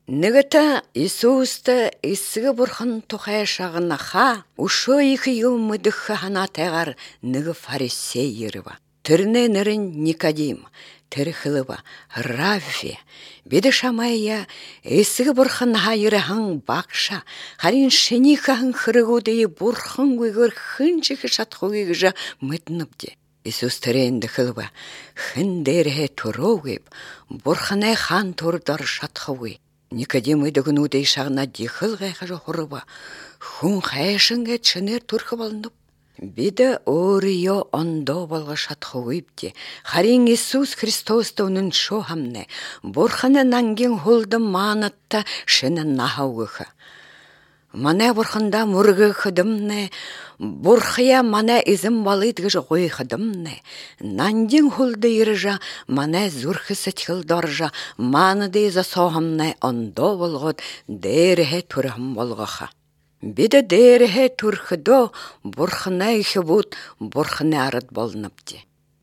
Нэгата Иисуста эсгэ бурхан тухай шагнаха өшөө их юм мэдэх ханатайгаар нэг фарисей ирва. Тэрний нэр нь Никодим. Тэр хэлва Равви бид шамая эсгэ бурхан хайрхан багша харин шинийхэн хэрэгүүдээ бурхан гүйгээр хинжих шатхугийг гэж мэднэвдэ. Иесус тэрэнд хэлва хэн дээрээ төрөөгэв бурханы хаан төрдөр шатхуй. Никодим идэгнүүдээ шагнаад ихэл гайхаж хурва хүн хайшингээ чинээр төрөх болно. Бид өөрийгөө ондоо болгож шатхуйвдэ. Харин Иесус Христост үнэн шо хамнэ. Бурханы нангийн хулдан маанатта шинэ нахавгах. Манай бурханда мөргөх дэмнэ. Бурхая манай эзэн балыд гэж гойх дэмнэ. Нандин хулда иржа манай зүрх сэтгэл доржа маанады засоохамнэ ондоо болгоод дээрээ төрөм болгоха. Бид дээрээ төрөхдөө бурханы их бут бурханы ард болнавдэ.